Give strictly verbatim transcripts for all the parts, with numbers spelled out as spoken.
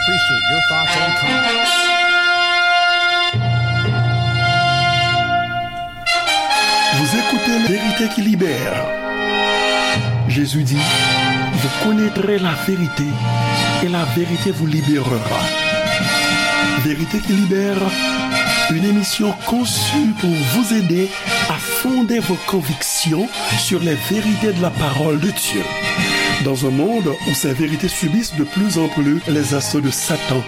Appreciate your thoughts and comments. Vous écoutez Vérité qui libère. Jésus dit, vous connaîtrez la vérité et la vérité vous libérera. Vérité qui libère, une émission conçue pour vous aider à fonder vos convictions sur les vérités de la parole de Dieu. Dans un monde où ces vérités subissent de plus en plus les assauts de Satan,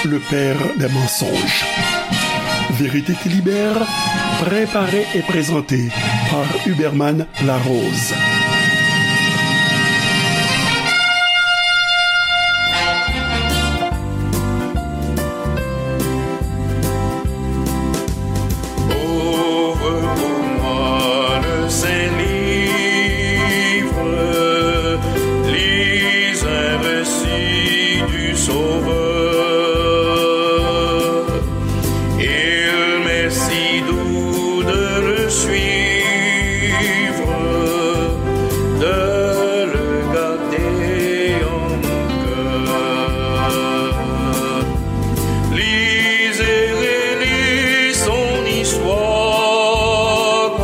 le père des mensonges. Vérité qui libère, préparée et présentée par Huberman Larose. Ouvre pour moi le Saint-Livre, lis un récit du Sauveur. Il m'est si doux de le suivre, de le garder en mon cœur. Lis et relis son histoire,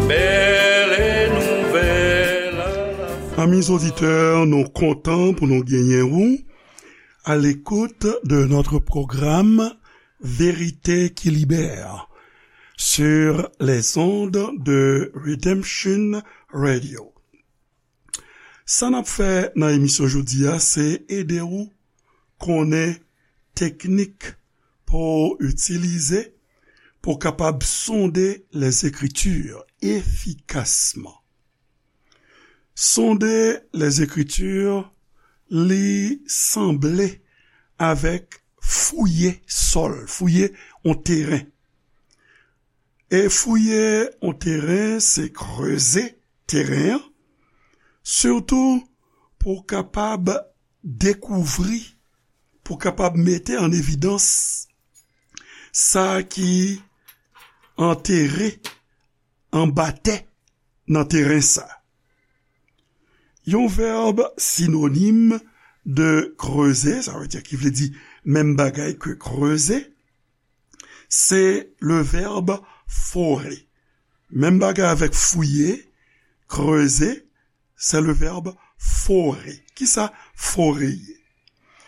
belle et nouvelle à la Amis auditeurs, nou kontan pou nou genyen ou à l'écoute de notre programme Vérité qui libère sur les ondes de Redemption Radio. Sa n ap fè nan emisyon jodi a, se ede w konnen teknik pou w itilize pou w kapab sonde les Écritures efikasman. Sonde les Écritures, li sanble avèk fouye sòl, fouye yon teren. E fouye yon teren, se kreze teren an, sitou pou w kapab dekouvri, pou w kapab mete an evidans sa ki antere anba tè nan teren sa. Yon vèb sinonim de kreze, sa vle di, ki vle di menm bagay ke kreze, se le vèb fore. Menm bagay avèk fouye, kreze, se le vèb fore. Kisa fore ye?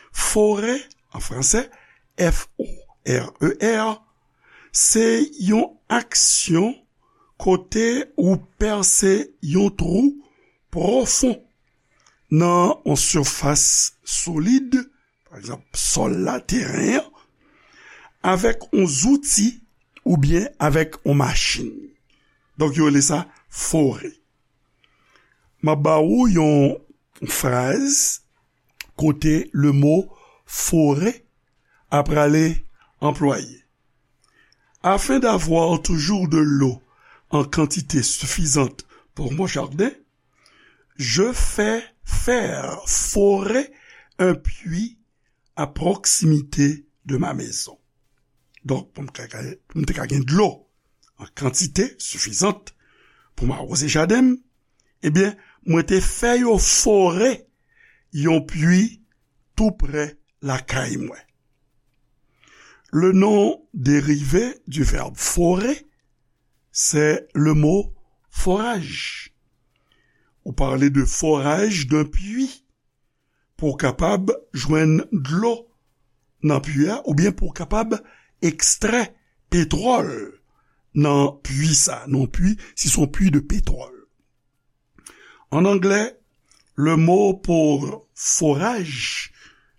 Fore, an fransè, F O R E R, se yon aksyon kote ou pèse yon twou pwofon nan yon sifas solid, pa egzanp, sòl la, teren an, avèk yon zouti oubyen avèk yon machin. Donk, yo rele sa fore. M ap ba ou yon fraz kote le mo fore ap prale anplwaye. Afin d'avoir toujours de l'eau en quantité suffisante pour mon jardin, je fais faire forer un puits à proximité de ma maison. Donk, pou m ka, pou m te ka gen dlo an kantite sifizant pou m awoze jaden m, ebyen, mwen te fè yo fore yon pui tou prè lakay mwen. Le nom dérivé du verbe forer, c'est le mot forage. Ou pale de forage d'un puits pou w kapab jwenn dlo nan pui a, oubyen pou w kapab ekstrè petwòl nan pui sa, nan pui, si se yon pui de petwòl. En anglais, le mot pour forage,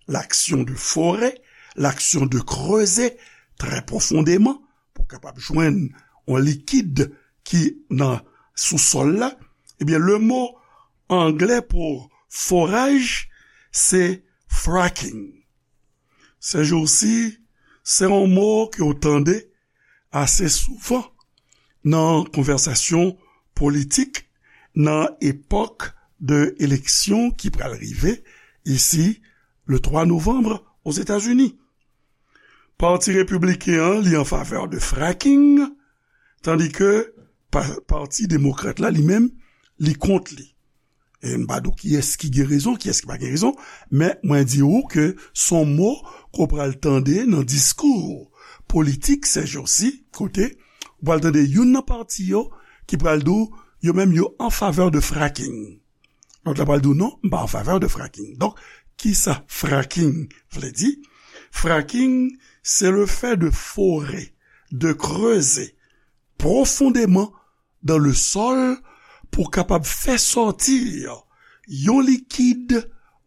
l'action de forer, l'action de creuser très profondément, pou w kapab jwenn yon likid ki nan sousòl la, ebyen, le mo anglè pou foraj, se fracking. Ces jours-ci, se yon mo ke w tande ase souvan nan konvèsasyon politik nan epòk de eleksyon ki pral rive isi le twa novanm Ozetazini. Pati repibliken an, li an favè de fracking, tandike pa, Pati Demokrat la, li menm, li kont li. E m pa di w kiyès ki gen rezon, kiyès ki pa gen rezon, men mwen di w ke s on mo ke w pral tande nan diskou politik sèjousi, kote w pral tande youn nan pati yo ki pral di w yo menm yo an favè de fracking. Lòt la pral di w non, m pa an favè de fracking. Donk, kisa fracking vle di? Fracking, c'est le fait de forer, de creuser profondément dans le sol pou kapab fè sòti yon likid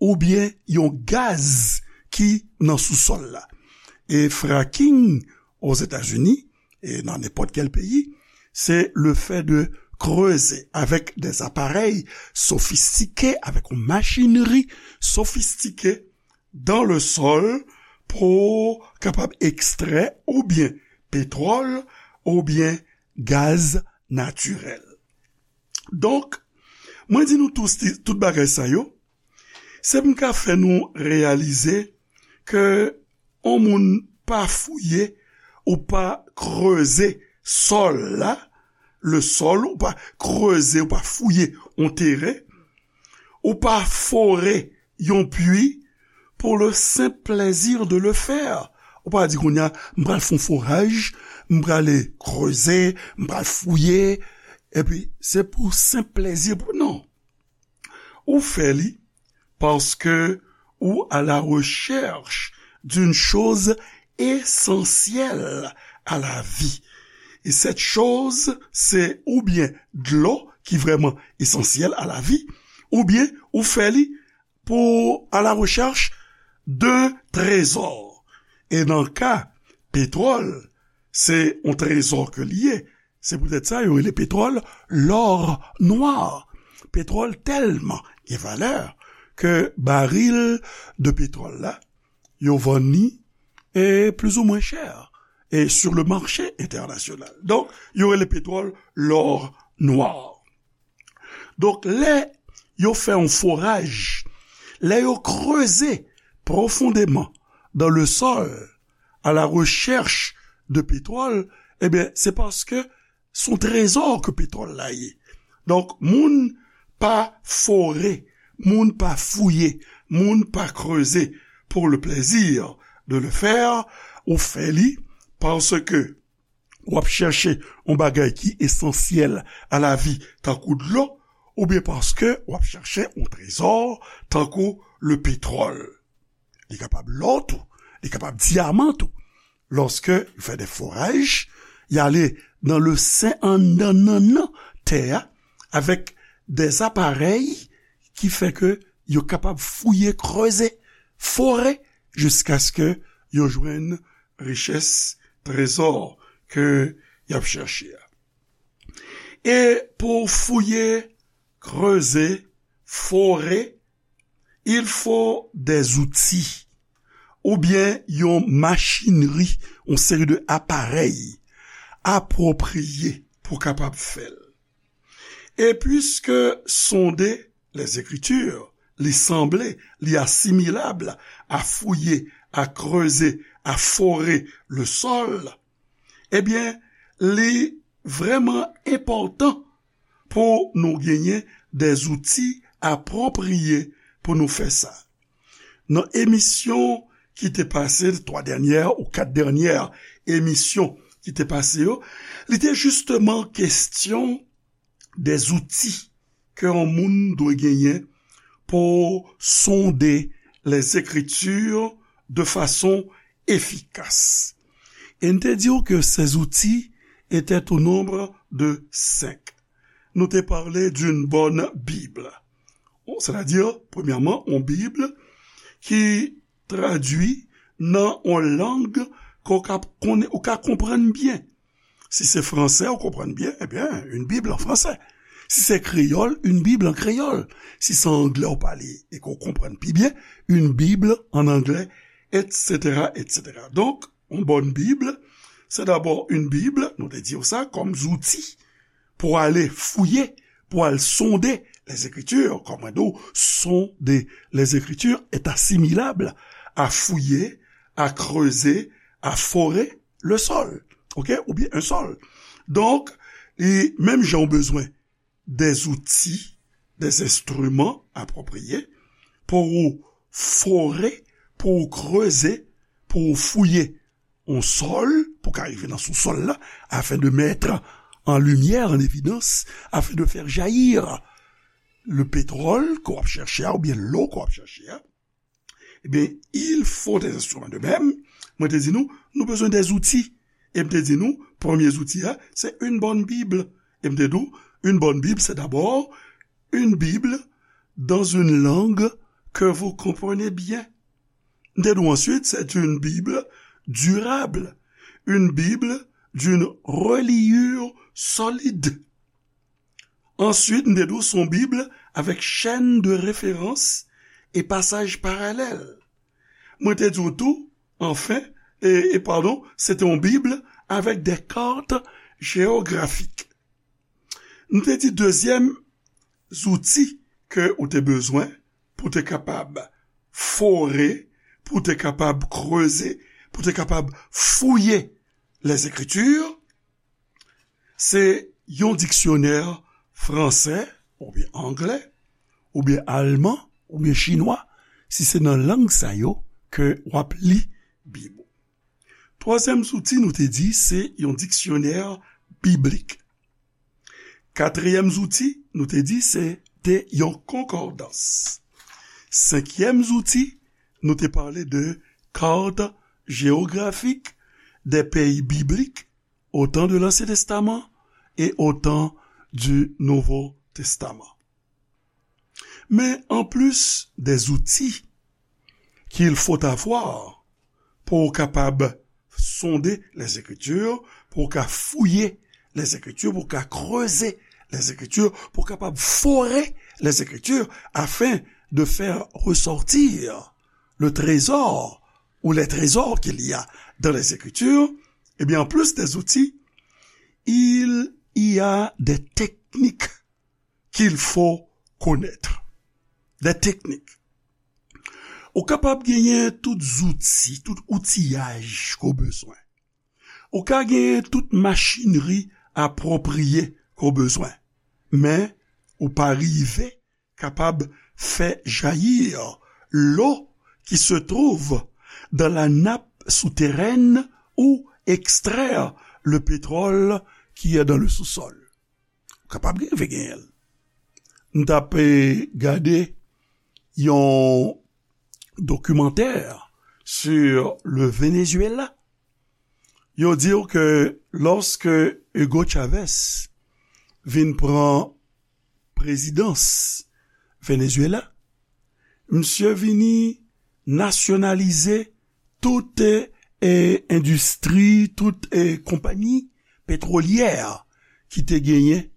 oubyen yon gaz ki nan sousòl la. E fracking Ozetazini, e nan nenpòt kèl peyi, se le fait de creuser avec des appareils sophistiqués, avec une machinerie sophistiquée dans le sol pou kapab ekstrè oubyen petwòl oubyen gaz natirèl. Donk, mwen di nou tout, tout bagay sa yo, se pou m ka fè nou reyalize ke yon moun pa fouye ou pa kreze sòl la, le sol, ou pa kreze, ou pa fouye yon teren, ou pa fore yon pwi pour le simple plaisir de le faire. Ou pa di kounye a, m pral fè yon foraj, m prale kreze, m pral fouye, epi se pou senp plezi, pou, non. Ou fè li paske ou à la recherche d'une chose essentielle à la vie. Et cette chose, se oubyen dlo ki vrèman esansyèl à la vie, oubyen ou fè li pou à la recherche d'un trésor. E nan ka petwòl, se yon trezò ke li ye. Se poutèt sa yo rele petwòl l'or noir. Petwòl tèlman gen valè ke baril de petwòl la, yo vann li e plizoumwen chè e sur le marché international. Donk, yo rele petwòl l'or noir. Donk, lè yo fè yon foraj, lè yo kreze profondément dans le sol à la recherche de pétrole, ebyen, se paske se yon trezò ke petwòl la ye. Donk, moun pa fore, moun pa fouye, moun pa kreze pour le plaisir de le faire, ou fè li paske w ap chèche yon bagay ki esansyèl à la vie, tankou dlo, oubyen paske w ap chèche yon trezò, tankou le pétrole. Li kapab lò tou, li kapab dyaman tou. Lòske yo fè de foraj, y ale nan le sen anndan nannan tè a, avèk de aparèy ki fè ke yo kapab fouye, kreze, fore, jiskaske yo jwenn richès, trezò ke y ap chèche a. E pou fouye, kreze, fore, il faut des outils, oubyen yon machinri, yon seri de aparèy apwopriye pou kapab fè l. E piske sonde les Écritures, li sanble, li asimilab a fouye, a kreze, a fore le sol, ebyen, li vrèman enpòtan pou nou genyen de zouti apwopriye pou nou fè sa. Nan emisyon ki te pase, twa dènyè ou kat dènyè emisyon ki te pase yo, li te jisteman kesyon de zouti ke yon moun dwe genyen pou sonde les Écritures de façon efficace. E n te di w ke ces outils étaient au nombre de cinq. Nou te pale d'une bonne Bible. Bon, c'est-à-dire, premyèman, yon Bib ki tradui nan yon lang ke w ka konnen, ou ka konprann byen. Si se fransè, ou konprann byen, ebyen, une Bible en français. Si se kreyòl, une Bible en créole. Si se anglè ou pale e ke w konprann pi byen, une Bible en anglais, et cetera, et cetera. Donk, yon bòn Bib, se dabò yon Bib, nou te di w sa, kòm zouti pou ale fouye, pou al sonde les Écritures, kòm mwen di w, sonde les Écritures est assimilable à fouiller, à creuser, à forer le sol, ok, oubyen un sol. Donk, e menm jan w bezwen de zouti des instruments appropriés pour ou forer, pour ou creuser, pour ou fouiller yon sòl, pou ka rive nan sousòl la, afin de mettre en lumière, en évidence, afin de faire jaillir le pétrole ke w ap chèche a, oubyen lò ke w ap chèche a, ebyen, il faut des instruments. De même, mwen te di nou, nou bezwen des outils. E m te di nou, premye zouti a, se une bonne Bible. E m te di w, une bonne Bible, c'est d'abord une Bible dans une langue que vous comprenez bien. M te di w answit, c'est une Bible durable, une Bible d'une reliure solide. Answit, m te di w, se yon Bib avec chaîne de référence et passages parallèles. Mwen te di w tou, enfin, e, e padon, se te yon Bib avec des cartes géographiques. M te di dezyèm zouti ke ou te bezwen pou te kapab fore, pou te kapab kreze, pou te kapab fouye les Écritures, se yon diksyonè fransè, oubyen anglè, oubyen alman, oubyen chinwa, si se nan lang sa yo ke w ap li Bib ou. Twazyèm zouti, nou te di, se yon diksyonè biblik. Katriyèm zouti, nou te di, se te yon konkòdans. Senkyèm zouti, nou te pale de carte géographique des pays bibliques au temps de l'Ancien Testament et au temps du Nouveau Testament. Mais en plus des outils qu'il faut avoir pou w kapab sonde les Écritures, pou w ka fouye les Écritures, pou w ka kreze les Écritures, pou w kapab fore les Écritures, afin de faire ressortir le trésor ou les trésors qu'il y a dans les Écritures, eh bien, en plus des outils, il y a des techniques qu'il faut connaître. Des techniques. Ou kapab genyen tout zouti, tout outiyaj ke w bezwen. Ou ka genyen tout machinri apwopriye ke w bezwen. Men, ou pa rive kapab fè jaillir l'eau qui se trouve dans la nappe souterraine ou extraire le pétrole qui est dans le sous-sol. Ou kapab rive genyen l. M t ap, eh, gade yon dokimantè sur le Venezuela. Yo di w ke lòske Hugo Chavez vin pran prezidans Venezuela, misye vini nasyonalize tout, eh, endistri, tout, eh, konpayi petwolyè ki te genyen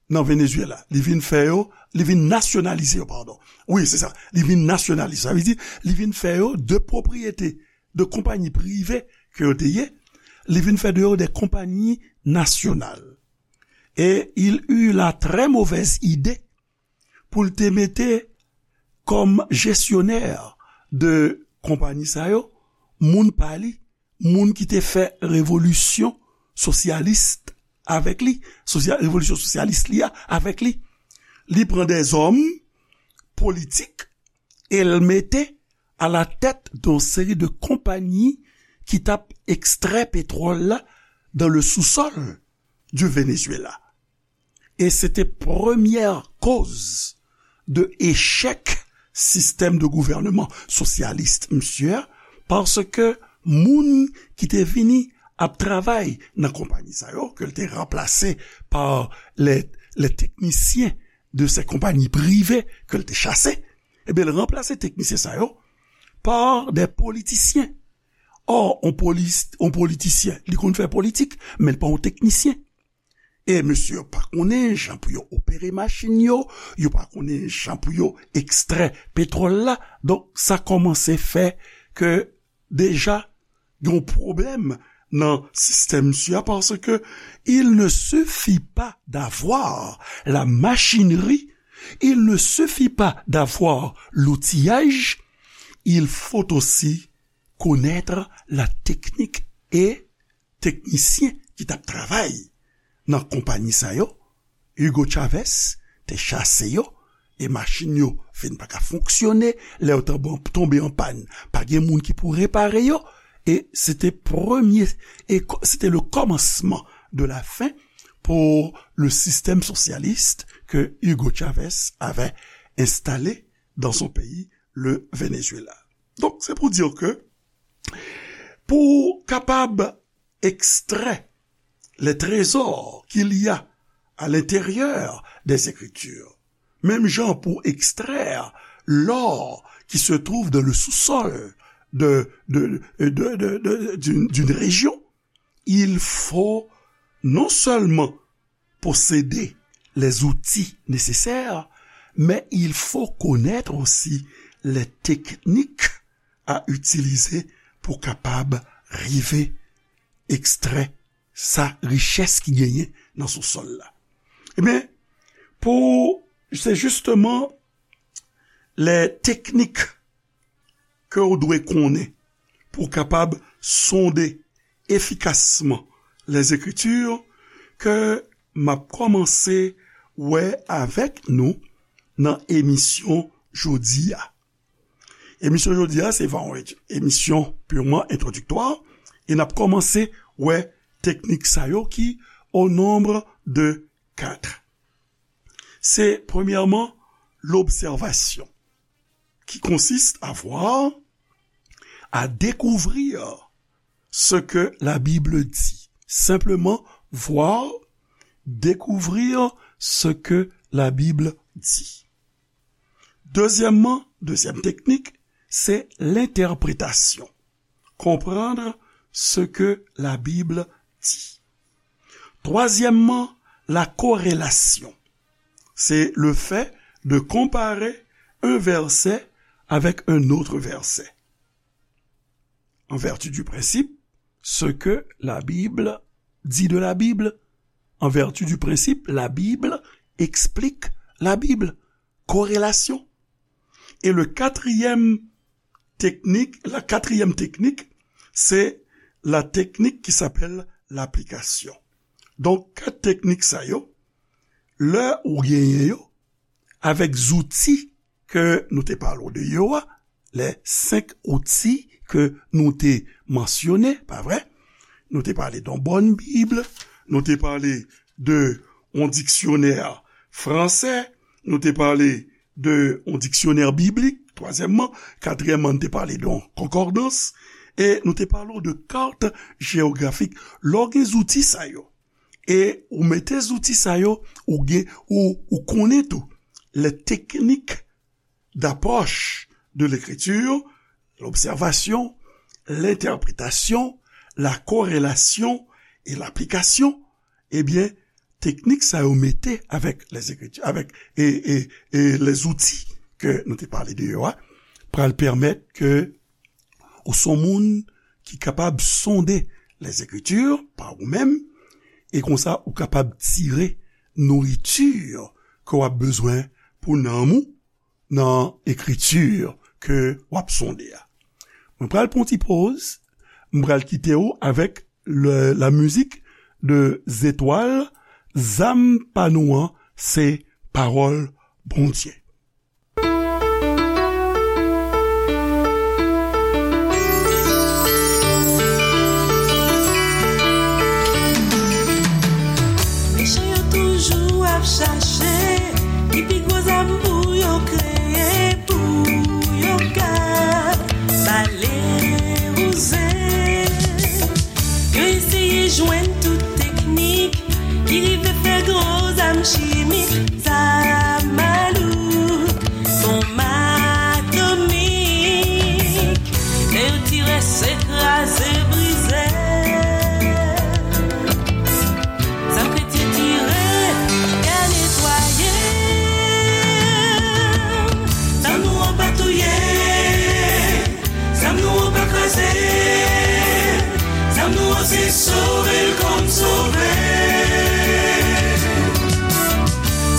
nan Venezuela. Li vin fè yo, li vin nasyonalize yo, padon. Wi, se sa. Li vin nasyonalize. Sa vle di, li vin fè yo de pwopriyete, de konpayi prive ke yo te ye. Li vin fè de yo de konpayi nasyonal. Et il eut la très mauvaise idée pou l te mete kòm jesyonè de konpayi sa yo, moun pa li, moun ki te fè revolisyon sosyalis avèk li, sosya-, revolisyon sosyalis li a avèk li. Li pran dèzòm politik e l mete à la tête d'une série de konpayi ki t ap ekstrè petwòl la dans le sous-sol du Venezuela. E se te premyè koz de echèk sistèm de gouvènman sosyalis misye a, paske moun ki te vini ap travay nan konpayi sa yo, ke l te ranplase pa les, les techniciens de ces compagnies privées ke l te chase, ebyen, l ranplase teknisyen sa yo pa de politisyen. Ò, on polis-, on politisyen, li konn fè politik, men l pa on teknisyen. E mesye yo pa konnen jan pou yo opere machin yo, yo pa konnen jan pou yo ekstrè petwòl la. Donk, sa kòmanse fè ke deja gen yon pwoblèm nan sistèm misye a, paske il ne suffit pas d'avoir la machinerie, il ne suffit pas d'avoir l'outillage, il faut aussi connaître la technique. E teknisyen ki t ap travay nan konpayi sa yo, Hugo Chavez te chase yo, e machin yo fin pa ka fonksyone, lè yo tonbe, tonbe an pàn, pa gen moun ki pou repare yo, e se te premye, e ko-, se te le kòmansman de la fin pour le système socialiste que Hugo Chavez avait installé dans son pays, le Venezuela. Donk, se pou di ke pou kapab extrait les trésors qu'il y a à l'intérieur des Écritures, même genre pour extraire l'or qui se trouve dans le sous-sol de, de, de, de, de, d'une, d'une région, il faut non seulement posséder les outils nécessaires, mais il faut connaître aussi les techniques à utiliser pou kapab rive extrait sa richès ki genyen nan sousòl la. Ebyen, pou, se jisteman lè teknik ke w dwe konnen pou w kapab sonde efikasman Lèzekriti ke m ap kòmanse wè avèk nou nan emisyon jodi a. Emisyon jodi a, se va yon emisyon purman entwodiktwa, e n ap kòmanse wè teknik sa yo ki au nombre de quatre. C'est premièrement l'observation, qui consiste à voir, à découvrir ce que la Bible dit. Simplement voir, découvrir ce que la Bible dit. Deuxièmement, deuxième technique, c'est l'interprétation. Comprendre ce que la Bible dit. Troisièmement, la corrélation. C'est le fait de comparer un verset avec un autre verset. En vertu du principe, ce que la Bible dit de la Bible. En vertu du principe, la Bible explique la Bible. Corrélation. Et le quatrième technique, la quatrième technique, c'est la technique qui s'appelle l'application. Donk, kat teknik sa yo, lè ou genyen yo, avèk zouti ke nou te pale w de yo a, les cinq outils que nou te mansyone, pa vre? Nou te pale de yon bòn Bib, nou te pale de yon diksyonè fransè, nou te pale de yon diksyonè biblik, twazyèmman, katriyèmman, nou te pale de yon konkòdans, e nou te pale w de kat jewografik. Lè w gen zouti sa yo, e ou mete zouti sa yo, ou gen, ou, ou konnen tou les techniques d'approche de l'écriture, l'observation, l'interprétation, la corrélation et l'application, ebyen, teknik sa yo mete avèk lèzekriti, avèk, e, e, e lèzouti ke nou te pale de yo a, pral pèmèt ke ou se yon moun ki kapab sonde lèzekriti pa ou menm, e konsa ou kapab tire nouriti ke w ap bezwen pou nanm ou nan ekriti ke w ap sonde a. Mwen pral pran yon ti poz, mwen pral kite w avèk le, la mizik de Zetwal, Zam pa nou an se pawòl Bondye. Mechan yo toujou ap chache ki pi gwo zam pou yo kreye, pou yo ka bale wouze. Yo eseye jwenn tout teknik ki rive fè gwo zam chimik, zam malouk, bonm atomik. Lè yo tire, se kraze, brize. Zam kretyen tire, y a netwaye. Zam nou an pa touye. Zam nou an pa kraze. Zam nou an se sove l kòm sove.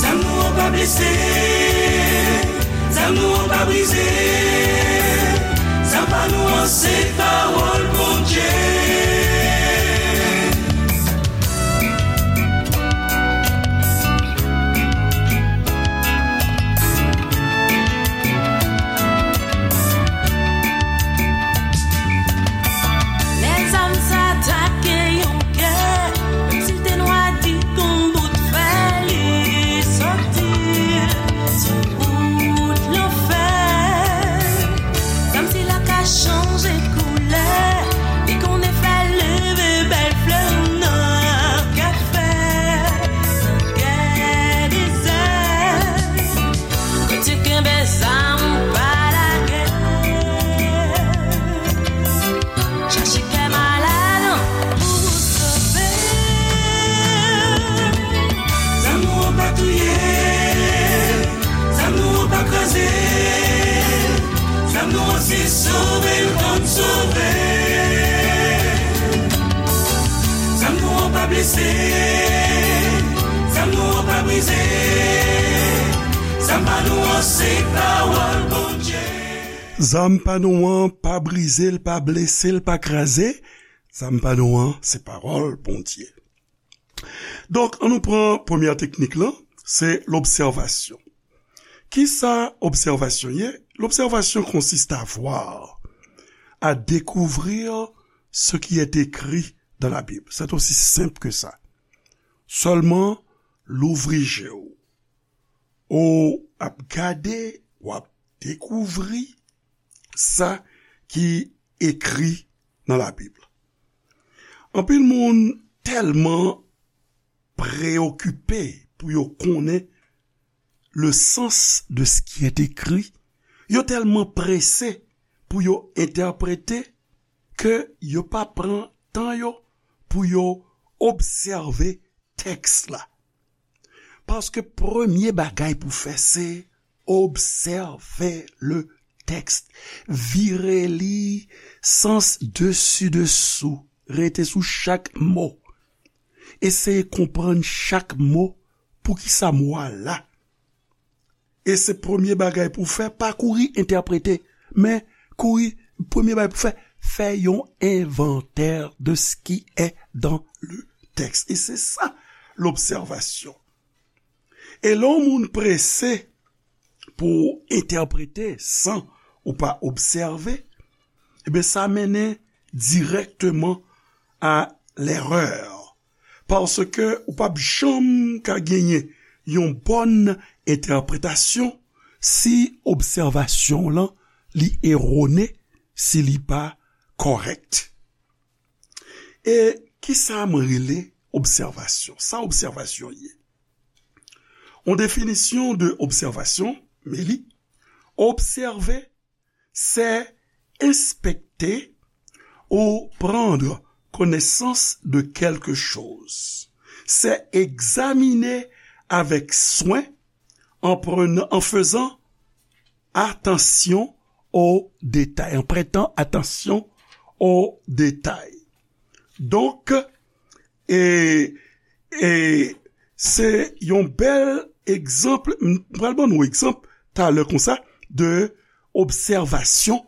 Zam nou an pa blese. Zam nou an pa brize. Zam pa nou an se pawòl Bondye. Sove l konn sove. Zam nou an pa blese, zam nou an pa brize. Zam pa nou an se pawòl Bondye. Zam pa nou an pa brize l, pa blese l, pa kraze. Zam pa nou an se pawòl Bondye. Donk, ann nou pran premyè teknik lan, se lobsèvasyon. Kisa obsèvasyon ye? L'observation consiste à voir, à découvrir ce qui est écrit dans la Bible. C'est aussi simple que ça. Sèlman louvri je w. Ou ap gade, w ap dekouvri sa ki ekri nan Labib. Anpil moun tèlman preyokipe pou yo konnen le sens de ce qui est écrit, yo tèlman prese pou yo entèprete ke yo pa pran tan yo pou yo obsève tèks la. Paske premye bagay pou fè se obsève le tèks. Vire li sans desi desou. Rete sou chak mo. Eseye konprann chak mo. Poukisa mo a la? E se premye bagay pou fè, pa kouri entèprete, men kouri, premye bagay pou fè, fè yon inventaire de ce qui est dans le texte. E se sa, lobsèvasyon. E lè yon moun prese pou entèprete san ou pa obsève, ebyen, sa mennen dirèkteman a l'erreur. Paske ou p ap janm ka genyen yon bòn entèpretasyon si obsèvasyon w lan li erone, si li pa kòrèk. E kisa m rele obsèvasyon? Sa obsèvasyon ye? Yon definisyon de obsèvasyon, men li, obsève, c'est inspecter ou prendre connaissance de quelque chose. C'est examiner avec soin en prenant, en faisant attention aux détails, en prêtant attention aux détails. Donk, e, e se yon bèl egzanp, m pral ban nou egzanp talè konsa, de obsèvasyon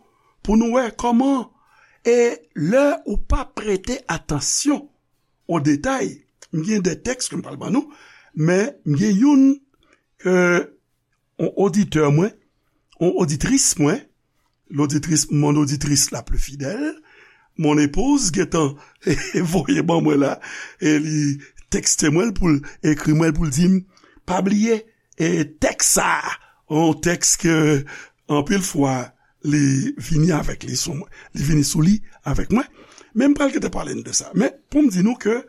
pou nou wè kòman, e lè ou pa prete atansyon o detay, m gen de tèks ke m pral ban nou, men m gen youn ke yon oditè mwen, yon oditris mwen, l'auditrice, mon auditrice la plus fidèle, mon épouse, gentan voye ban mwen la, e li tekste mwen pou l, ekri mwen pou l di m, pa bliye, e tèks sa, yon tèks ke anpil fwa li vini avèk li sou mwen, li vini sou li avèk mwen. Men m pral gentan pale n de sa. Men pou m di nou ke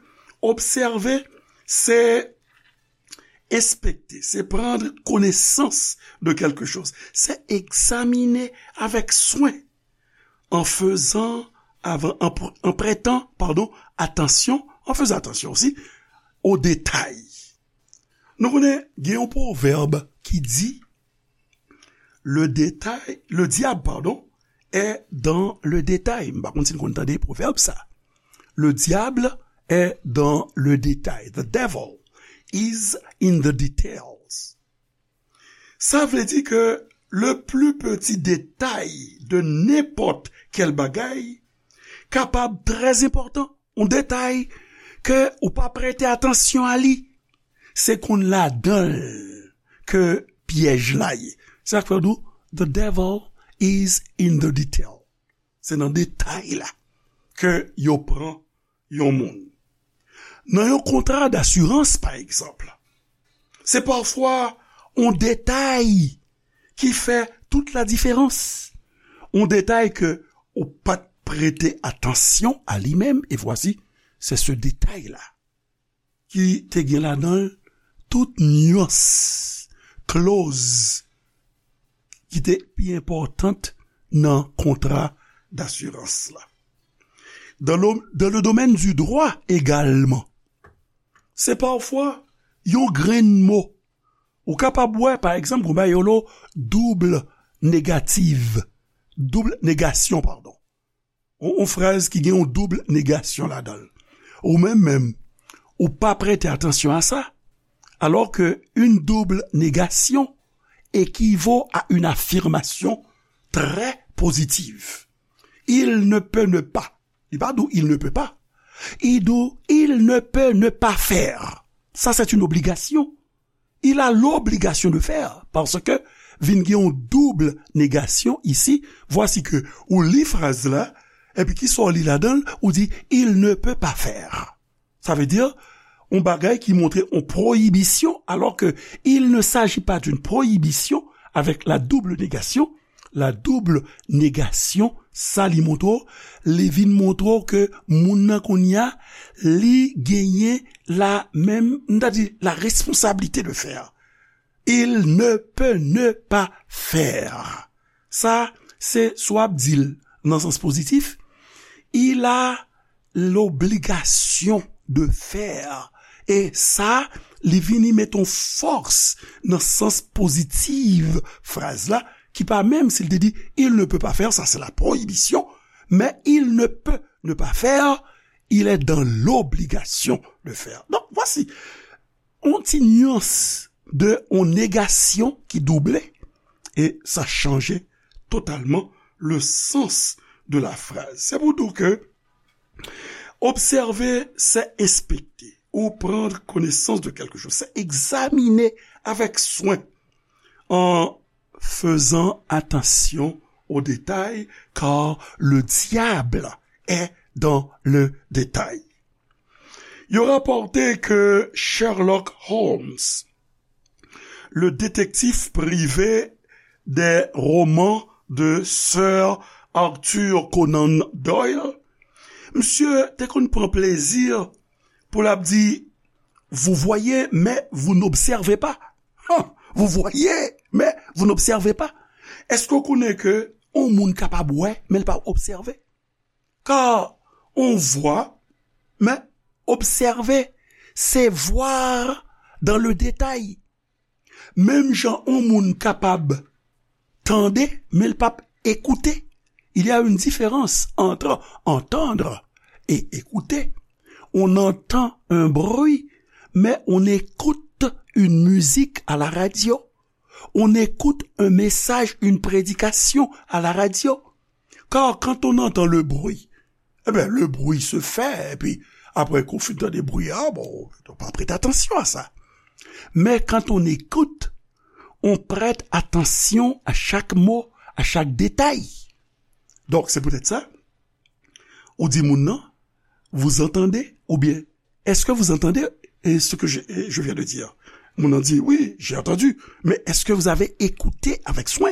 obsève, se inspecter, c'est prendre connaissance de quelque chose, c'est examiner avec soin, en faisant, avant, en, pr- en prêtant, pardon, attention, en faisant attention aussi aux détails. Nou konnen, gen yon pwovèb ki di, le détail, le diable, pardon, est dans le détail. M pa konn si n konn tande pwovèb sa. Le diable est dans le détail. The devil is in the details. Sa vle di ke le plus petit détail de nenpòt kèl bagay kapab trè enpòtan. Yon detay ke ou pa prete atansyon a li, se konn ladan l ke pyèj la ye. Se sa k fè yo di w, the devil is in the detail. Se nan detay la ke yo pran yon moun. Nan yon kontra dasirans, pa egzanp, se pafwa yon detay ki fè tout ladiferans. Yon detay ke ou pa t prete atansyon a li menm, e vwasi, se se detay la ki te gen ladan l tout nyans, kloz ki te pi enpòtan nan kontra dasirans la. Dans le, dans le domaine du droit également, se pafwa yon grenn mo. Ou kapab wè, pa egzanp, gon bagay yo rele double negative. doub negasyon, padon. Yon, yon fraz ki gen yon doub negasyon ladan l. Ou menm menm, ou pa prete atansyon a sa, alors que une double négation équivaut à une affirmation très positive. Il ne peut ne pas. Li pa di w il ne peut pas. Li di w il ne peut ne pas faire. Ça, c'est une obligation. Il a l'obligation de faire, parce que vin gen yon doub negasyon isi. Vwasi ke ou li fraz la, epi ki sa w li ladan l, ou di il ne peut pas faire. Sa vle di, yon bagay ki montre yon pwoyibisyon, alors que il ne s'agit pas d'une prohibition avec la double négation. La double négation, sa li montre w, li vin montre w ke moun nan kounye a, li genyen la menm, m ta di, la responsabilité de faire. Il ne peut ne pas faire. Sa, se swa ap di l nan sans pozitif, il a l'obligation de faire. E sa, li vini met yon fòs nan sans pozitif fraz la, ki pa menm si l te di il ne peut pas faire, sa se la prohibition, mais il ne peut ne pas faire, il est dans l'obligation de faire. Donc, voici yon ti nyans de yon negasyon ki double, e sa chanje totalman le sens de la phrase. Se pou di w ke observer, c'est inspecter ou prendre connaissance de quelque chose, c'est examiner avec soin en faisant attention aux détails, car le diable est dans le détail. Yo rapòte ke Sherlock Holmes, le détective privé des romans de Sir Arthur Conan Doyle, misye te konn pran plezi pou l ap di, vous voyez, mais vous n'observez pas. Hein, vous voyez, mais vous n'observez pas. Èske w konnen ke yon moun kapab wè, men l pa obsève? Car on voit, mais observer, c'est voir dans le détail. Menm jan yon moun kapab tande, men l p ap écouter. Il y a une différence entre entendre et écouter. On entend un bruit, mais on écoute une musique à la radio. On écoute un message, une prédication à la radio. Car quand on entend le bruit, eh bien, le bruit se fait, et puis après qu'on fin tande bri a, bon, on pa prête attention à ça. Mais quand on écoute, on prête attention à chaque mot, à chaque détail. Donc, c'est peut-être ça. Ou di moun nan, vous entendez, ou bien, est-ce que vous entendez, eh, ce que je, eh, je viens de dire? Moun nan di, oui, j'ai entendu. Mais est-ce que vous avez écouté avec soin?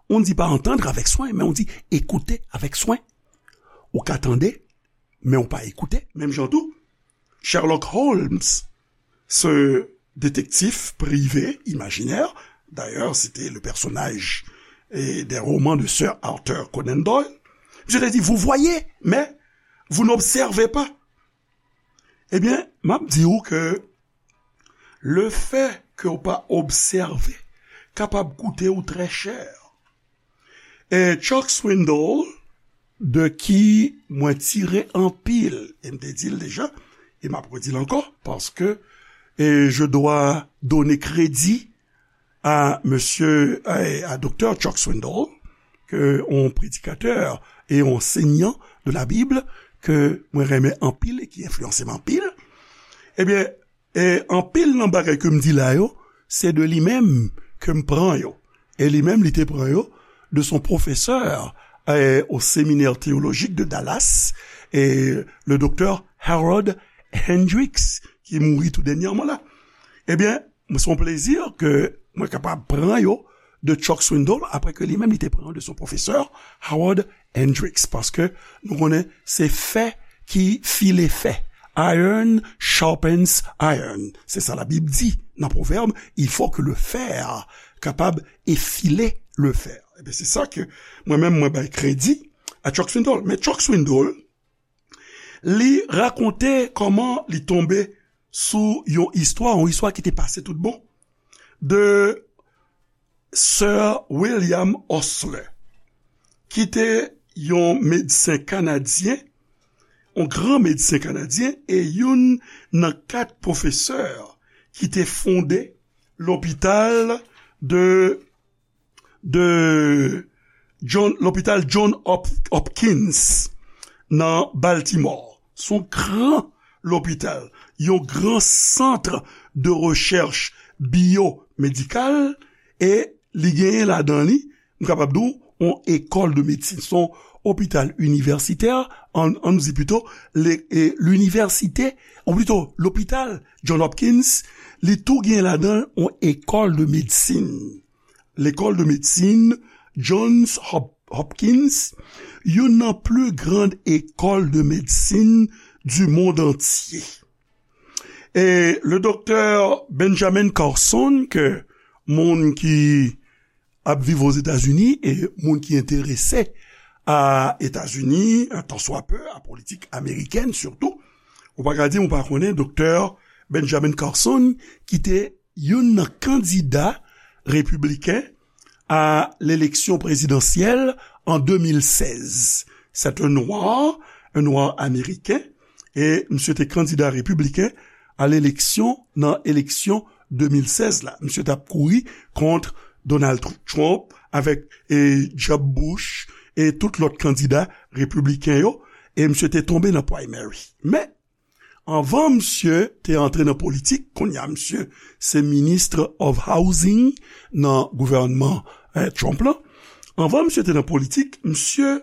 On ne dit pas entendre avec soin, mais on dit écouter avec soin. Ou ka tande, men ou pa écouter. Menm jan tou, Sherlock Holmes, ce détective privé imaginaire, d'ailleurs, c'était le personnage, eh, des romans de Sir Arthur Conan Doyle, je te dis, vous voyez, mais vous n'observez pas. Ebyen, m ap di w ke le fait que w pa obsève kapab koute w très cher. E Chuck Swindoll, de ki mwen tire anpil, e m te di l deja, e m ap redi l ankò, paske, e je dois donner crédit à monsieur, à, à docteur Chuck Swindoll, ke yon predikatè e yon ansèyan de la Bib ke mwen renmen anpil e ki enfliyanse m anpil. Ebyen, e anpil nan bagay ke m di la yo, se de li menm ke m pran yo. E li menm, li te pran yo de son professeur, eh, au séminaire théologique de Dallas, e le docteur Harold Hendricks, ki mouri tou dènyèman la. Ebyen, se yon plezi ke mwen kapab pran yo de Chuck Swindoll, apre ke li menm li te pran yo de son professeur Harold Hendricks, paske nou konnen se fè ki file fè. Iron sharpens iron. Se sa Labib di nan Pwovèb, il faut que le fer capable effiler le fer. Ebyen, se sa ke mwen menm, mwen bay kredi a Chuck Swindoll. Men Chuck Swindoll, li rakonte kòman li tonbe sou yon istwa, yon istwa ki te pase tout bon, de Sir William Osler, ki te yon medsen kanadyen, yon gran medsen kanadyen, e youn nan kat pwofesè ki te fonde lopital de, de John, lopital John Hop-, Hopkins nan Baltimore. Se yon gran lopital, yon gran sant de rechèch biyomedikal, e li genyen ladan li, m kapab di w, yon ekòl de medsin. Se yon opital inivèsitè, ann, ann di pito, le, e, linivèsite, ou pito, lopital John Hopkins, li tou genyen ladan l yon ekòl de medsin. Lekòl de medsin Johns Hop-, Hopkins, youn nan pli gran ekòl de medsin di mond antye. E le doktè Benjamin Carson, ke moun ki ap viv Ozetazini e moun ki enterese a Etazini, un tant soit peu, a politik amerikèn sitou, ou pa ka di m ou pa konnen doktè Benjamin Carson, ki te youn nan kandida repibliken a leleksyon prezidansyèl an de mil sèz. C'est un noir, un noir américain, e misye te kandida repibliken a leleksyon, nan eleksyon de mil sèz la. Misye t ap kouri kont Donald Trump avèk, e, Jeb Bush e tout lòt kandida repibliken yo, e misye te tonbe nan primary. Men, anvan misye te antre nan politik, kounye a misye se Minister of Housing nan gouvènman, eh, Trump lan. Anvan misye te nan politik, misye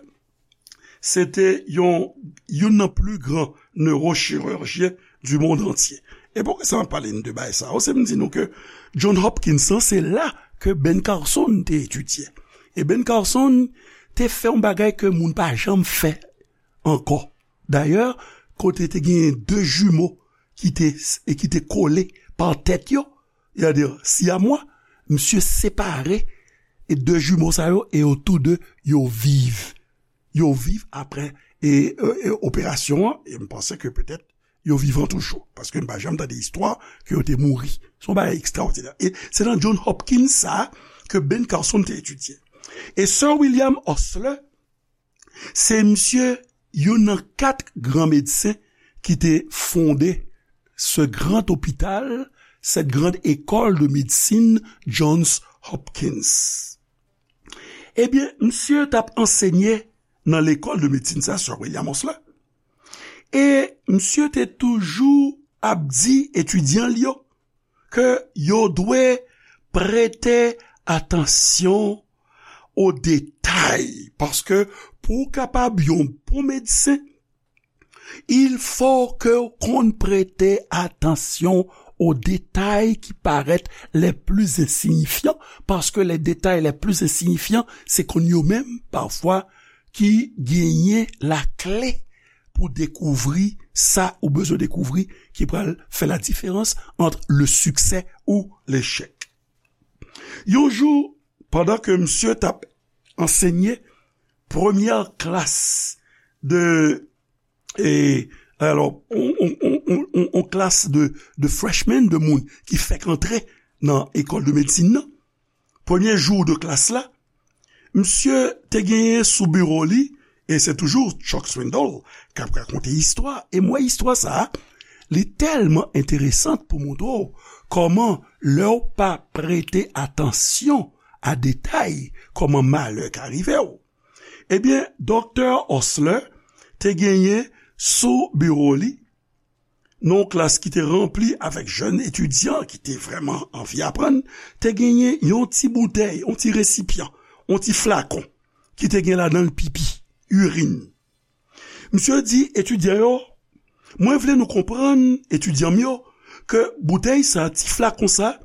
se te yon, youn nan pli gran newochirijyen du monde entier. E poukisa m ap pale n de bagay sa yo? Se m di nou ke John Hopkins lan, se la ke Ben Carson te etidye. E Ben Carson te fè yon bagay ke moun pa janm fè ankò. Dayè, kote te genyen de jimo ki te, e ki te kole pa tèt yo, sètadi siyamwa, misye separe e de jimo sa yo, e yo tou de, yo viv. Yo viv apre, e, e, e operasyon an, e m panse ke petèt yo vivan toujou, paske m pa janm tande istwa ke yo te mouri. Se yon bagay ekstraòdinè. E se nan John Hopkins sa a ke Ben Carson te etidye. E Sir William Osler, se misye youn nan kat gran medsen ki te fonde ce grand hôpital, cette grande école de médecine Johns Hopkins. Ebyen, misye t ap ansenye nan lekòl de medsin sa, Sir William Osler. E misye te toujou ap di etidyan l yo ke yo dwe prete atansyon o detay, paske pou w kapab yon bon medsen, il faut que w konn prete atansyon o detay ki parèt les plus insignifiants, paske les détails les plus insignifiants, se konn yo menm, pafwa, ki genyen lakle pou dekouvri sa ou bezwen dekouvri, ki pral fè la diferans ant le succès ou l'échec. Yon jou, pandan ke misye t ap ansenye premyè klas de, e, alò, on, on klas de, de freshmen, de moun ki fèk antre nan ekòl de medsin nan, premye jou de klas la, misye te genyen sou biwo li, e se toujou Chuck Swindoll k ap rakonte istwa, e m wè istwa sa a, li tèlman enteresan pou montre w kòman lè w pa prete atansyon a detay, kòman malè ka rive w. Ebyen, Doktè Osler te genyen sou biwo li, nan yon klas ki te ranpli avèk jèn etidyan ki te vrèman anvi aprann, te genyen yon ti boutèy, yon ti resipyan, yon ti flakon ki te gen ladan l pipi, irin. Misye di etidyan yo, mwen vle nou konprann, etidyan m yo, ke boutèy sa, ti flakon sa,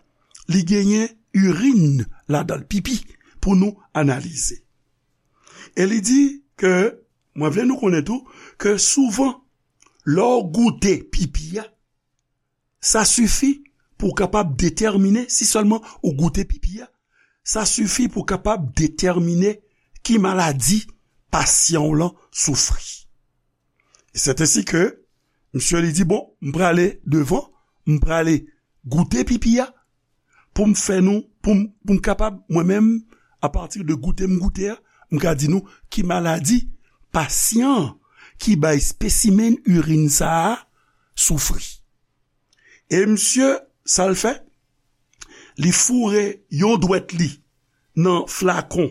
li genyen irin ladan l, pipi, pou nou analize. E li di ke, mwen vle nou konnen tou, ke souvan, lè w goute pipi a, sa sifi pou w kapab detèmine, si sèlman ou goute pipi a, sa sifi pou w kapab detèmine ki maladi pasyan w lan soufri. E sèt ensi ke misye li di, bon, m prale devan, m prale goute pipi a, pou m fè nou, pou m, pou m kapab, mwen menm, apati de goute m goute a, m ka di nou, ki maladi pasyan ki bay espesimen irin sa a soufri. E misye, sa l fè? Li foure yon dwèt li nan flakon,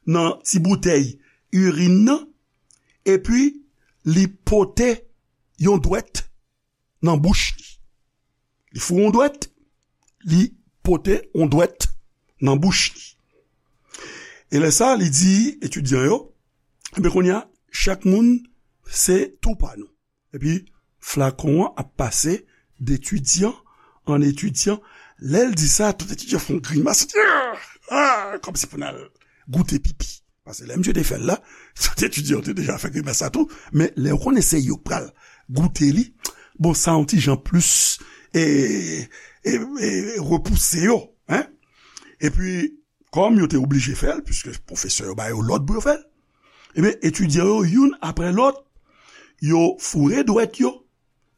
nan ti boutèy irin nan, epi li pote yon dwèt nan bouch li. Li foure yon dwèt, li pote yon dwèt nan bouch li. E lè sa, li di etidyan yo, "Ebyen, kounye a, chak moun se tou pa nou." Epi, flakon an ap pase detidyan an etidyan. Lè l di sa, tout etidyan fè yon grimas. Ah! Ah! Kòmsi pou n al goute pipi. Paske lè misye te fè l la, tout etidyan yo te deja fè grimas sa tou. Men lè yo konnen se yo k pral goute li, bon, sa yon ti jan plis e, e, e repouse yo, en. Epi, kòm yo te oblije fè l, piske pwofesè yo ba yo lòd pou yo fè l, ebyen, etidyan yo, youn apre lòt, yo foure dwèt yo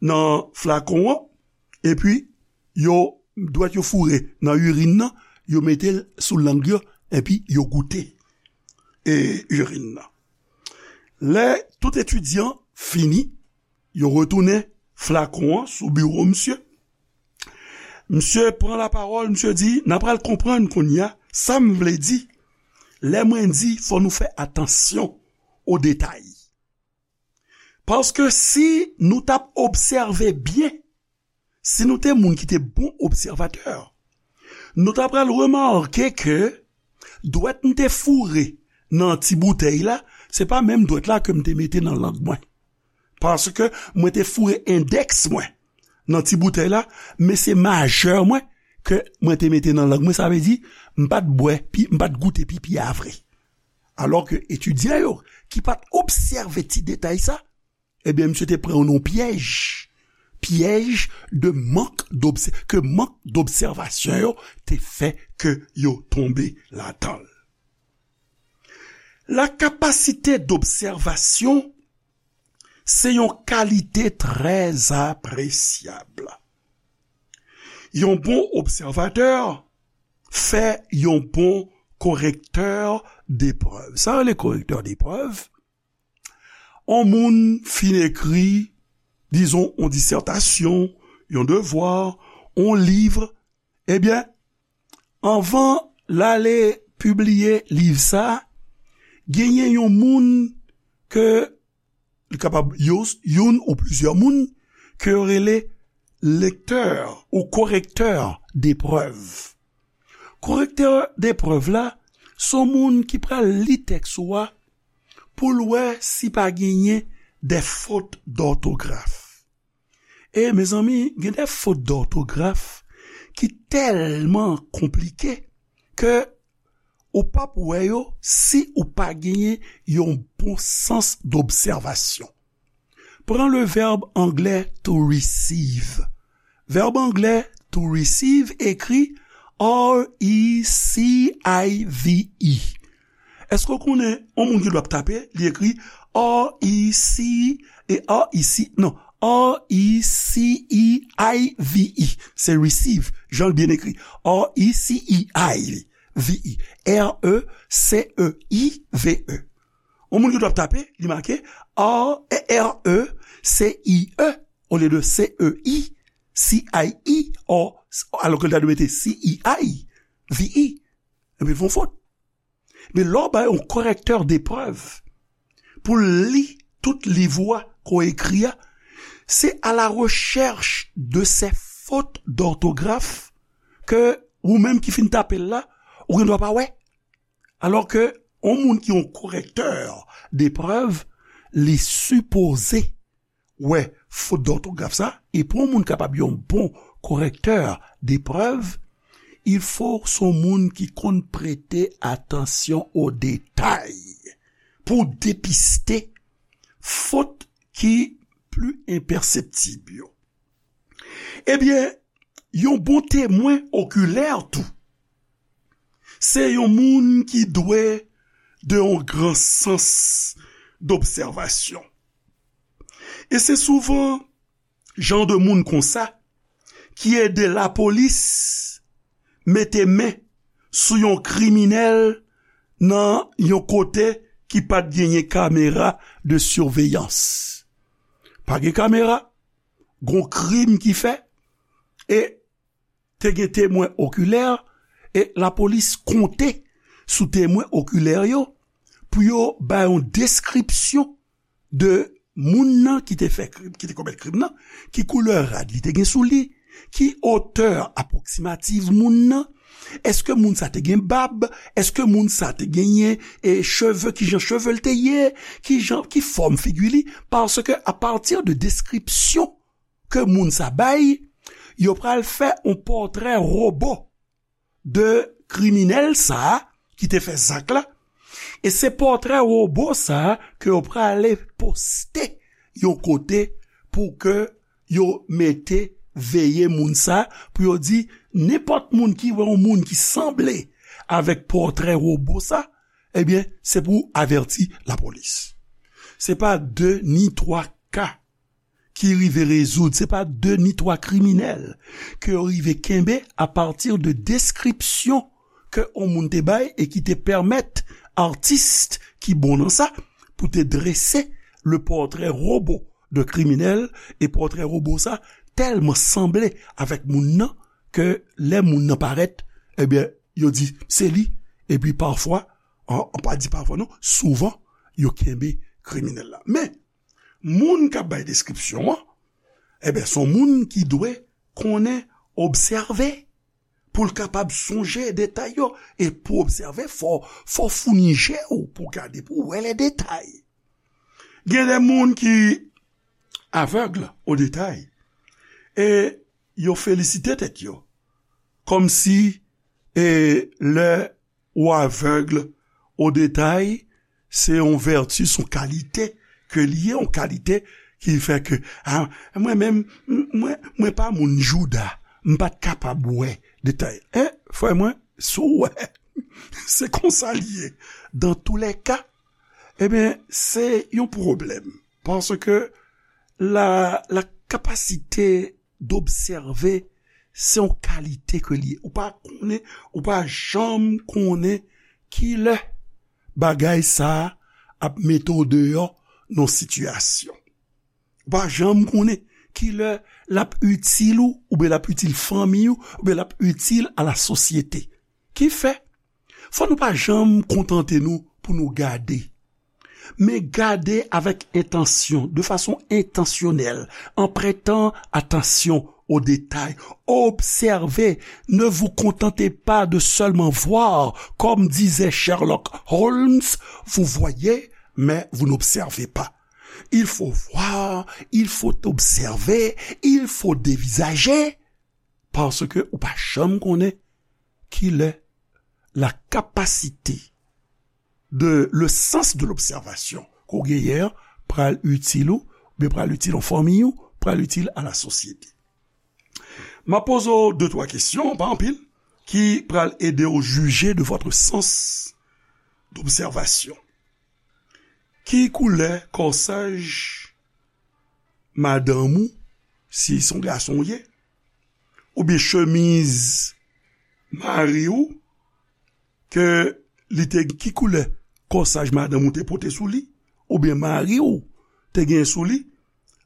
nan flakon an, epi yo, dwèt yo foure nan irin nan, yo mete l sou lang yo, epi yo goute, e, irin nan. Lè tout etidyan fini, yo retounen flakon an sou biwo misye. Misye pran lapawòl, misye di, "N a pral konprann kounye a sa m vle di lè mwen di fò nou fè atansyon o detay." Paske si nou t ap obsève byen, si nou te moun ki te bon obsèvatè, nou ta pral remake ke dwèt m te foure nan ti boutèy la, se pa menm dwèt la ke m te mete nan lang mwen. Paske mwen te foure endèks mwen nan ti boutèy la, men se majè mwen ke mwen te mete nan lang mwen, sa vle di, m pa t bwè, pi, m pa t goute pipi a vre. Alò ke etidyan yo, ki pa t obsève ti detay sa, ebyen, misye te pran yo nan pyèj. Pyèj de mank d'obsè-, ke mank d'obsèvasyon yo te fè ke yo tonbe ladan l. La capacité d'observation, se yon kalite trè apresyab. Yon bon obsèvatè fè yon bon korektè deprèv. Sa rele korektè deprèv? On moun fin ekri, dizon, on disètasyon, yon devwa, on liv, ebyen, anvan l ale pibliye liv sa, genyen yon moun ke li kapab yo, youn ou plizyè moun ke yo rele lektè ou korektè deprèv. Korektè deprèv la, se yon moun ki pral li tèks ou a pou l wè si pa genyen de fot dòtograf. E, mezanmi, gen de fot dòtograf ki tèlman konplike ke ou p ap wè yo si ou pa genyen yon bon sans d'observation. Pran le vèb anglè to receive. Vèb anglè to receive ekri R E C I V E. Èske w konnen yon moun ki dwe ap tape, li ekri R E C, e R E C, non, R E C E I V E. Se receive, jan l byen ekri. R E C E I V E. R E C E I V E. Yon moun ki dwe ap tape, li make R, R E C I E olye de C E I, C I E, or, alò ke l ta dwe mete C E I V E. Epi l fè yon fot. Men lè w bay yon korektè deprèv pou l li tout liv ou a ke w ekri a, se à la recherche de ces fautes d'orthographe ke ou menm ki fin tape l la, ou gen dwa pa wè. Alò ke yon moun ki yon korektè deprèv, li sipoze wè fot dòtograf sa, e pou yon moun kapab yon bon korektè deprèv, il faut se yon moun ki konn prete atansyon o detay pou depiste fot ki pli enpèseptib yo. Ebyen, yon bon temwen okilè tou, se yon moun ki dwe de yon gran sans d'observation. E se souvan jan de moun konsa ki ede lapolis mete men sou yon kriminèl nan yon kote ki pa t genyen kamera de siveyans. Pa gen kamera, gon krim ki fè, e te gen temwen okilè, e lapolis konte sou temwen okilè yo pou yo bay yon deskripsyon de moun nan ki te fè krim, ki te komèt krim nan, ki koulè rad li te gen sou li, ki otè apwoksimativ moun nan, èske moun sa te gen bab, èske moun sa te genyen e cheve, ki jan cheve l te ye, ki jan, ki fòm figi li, paske apati de deskripsyon ke moun sa bay, yo pral fè yon pòtrè wobo de kriminèl sa a ki te fè zak la. E se pòtrè wobo sa a ke yo prale poste yon kote pou ke yo mete veye moun sa a, pou yo di nenpòt moun ki wè yon moun ki sanble avèk pòtrè wobo sa, ebyen, se pou avèti lapolis. Se pa de ni twa ka ki rive rezoud, se pa de ni twa kriminèl ke yo rive kenbe apati de deskripsyon ke yon moun te bay e ki te pèmèt atis ki bon nan sa pou te drese le pòtrè wobo de kriminèl, e pòtrè wobo sa tèlman sanble avèk moun nan ke lè moun nan parèt, ebyen, yo di se li, epi pafwa, an, an pa di pafwa non, souvan, yo kenbe kriminèl la. Men, moun k ap bay deskripsyon an, ebyen, se yon moun ki dwe konnen obsève pou l kapab sonje detay yo. E pou obsève, fò, fò founi je w pou gade, pou wè lè detay. Gen de moun ki avèg o detay e yo felisite tèt yo. Kòmsi, e, lè ou avèg o detay, se yon vèti, se yon kalite ke li ye, yon kalite ki fè ke, a, mwen menm, m-, mwen, mwen pa moun jouda, m pa t kapab wè detay. E, frè mwen, si w wè, se konsa l ye. Dan tou lè ka, ebyen, se yon pwoblèm. Paske la, la kapasite d'observer, se yon kalite ke li ye. Ou pa konnen, ou pa janm konnen kilè bagay sa a ap mete w deyò nan sitiyasyon. Ou pa janm konnen kilè l ap itil ou, oubyen l ap itil fanmi ou, oubyen l ap itil a la sosyete. Ki fè, fò nou pa janm kontante nou pou nou gade. Men gade avèk entansyon, de fason entansyonèl, en prêtant attention aux détails. Observez, ne vous contentez pas de seulement voir, comme disait Sherlock Holmes, vous voyez, mais vous n'observez pas. Il faut voir, il faut observer, il faut dévisager, paske ou pa janm konnen kilè la capacité de, le sens de l'observation ke w genyen an pral itil ou, oubyen pral itil yon fanmi ou, pral itil a la sosyete. M ap poze w de twa kesyon, pa anpil, ki pral ede w jije de votre sens d'observation. Ki koulè kòsaj madanm ou, si se yon gason w ye, oubyen chemiz mari w, ke li te, ki koulè kòsaj madanm ou te pote sou li, oubyen mari w te gen sou li,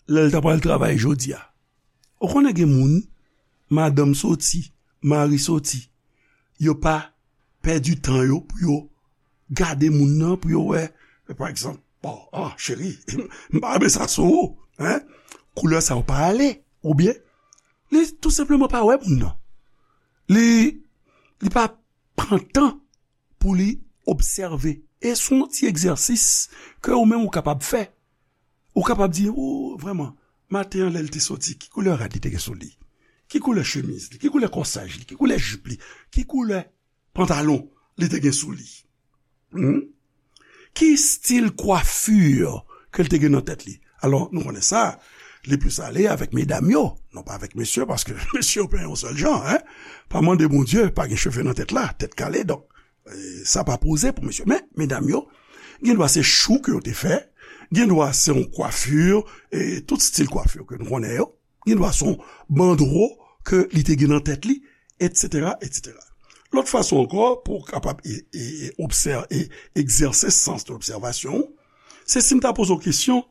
lè l ta pral travay jodi a? Ou konnen gen moun, madanm soti, mari soti, yo pa pèdi tan yo pou yo gade moun nan, pou yo wè, pa egzanp, bon, ah, cheri, m pa renmen sa sou ou, hein? Koulè sa yo pa ale, oubyen li tou senpleman pa wè moun nan. Li, li pa pran tan pou li obsève. E se yon ti egzèsis ke ou menm ou kapab fè. Ou kapab di, o, vrèman, maten an lè l te soti, ki koulè rad li te gen sou li? Ki koulè chemiz li? Ki koulè kòsaj li? Ki koulè jip li? Ki koulè pantalon li te gen sou li? Hmm? Ki stil kwafi ke l te gen nan tèt li? Alò, nou konnen sa, li plis ale avèk medam yo, non pa avèk mesye, paske mesye yo pa yon sèl jan, hein. Pa mande Bondye, pa gen cheve nan tèt la, tèt kale, donk, e, sa pa poze pou mesye. Men, medam yo, gen dwa se chou ke yo te fè, gen dwa se yon kwafi, e tout stil kwafi ke nou konnen yo, gen dwa se yon bandro ke li te gen nan tèt li, etsetera, etsetera. Lòt fason ankò, pou w kapab e, e, e, obsè-, e, egzèse sans de lobsèvasyon, se si m ta poze w kesyon,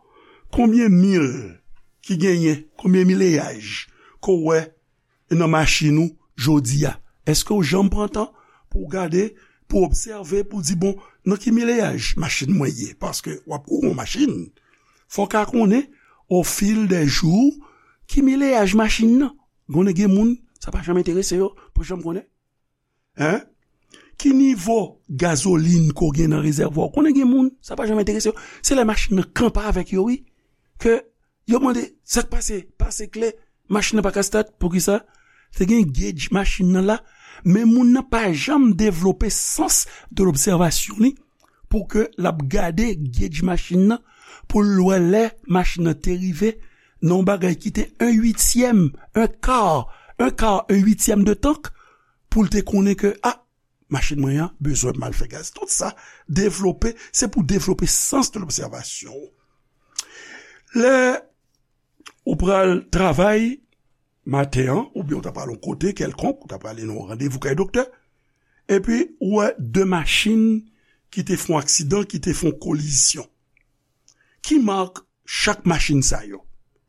konbyen mil ki genyen, konbyen mileyaj ke w wè nan machin ou jodi a? Èske w janm pran tan pou w gade, pou w obsève, pou w di, "Bon, nan ki mileyaj machin mwen ye?" Paske w ap kouri yon machin, fò w ka konnen, au fil des jours, ki mileyaj machin nan. Konnen gen moun, sa pa janm enterese yo, pou janm konnen. Hein? Ki nivo gazolin ke w gen nan rezèvwa w? Konnen gen moun, sa pa janm enterese yo. Se lè machin nan kanpe avèk yo, wi, ke yo mande, "Sa k pase? Pase kle, machin nan pa ka start." Poukisa? Te gen gauge machin nan la, men moun nan pa janm devlope sans de lobsèvasyon li pou ke l ap gade gauge machin nan, pou l wè lè machin nan te rive nan yon bagay ki te un huitième, un quart, un quart, un huitième de tank, pou l te konnen ke, a, machin mwen an bezwen m al fè gaz. Tout sa, devlope, se pou devlope sans de lobsèvasyon. Lè ou pral travay maten an, oubyen ou ta pral yon kote kèlkonk, ou ta prale nan yon randevou kay doktè, epi ou wè de machin ki te fè yon aksidan, ki te fè yon kolizyon. Ki mak chak machin sa yo?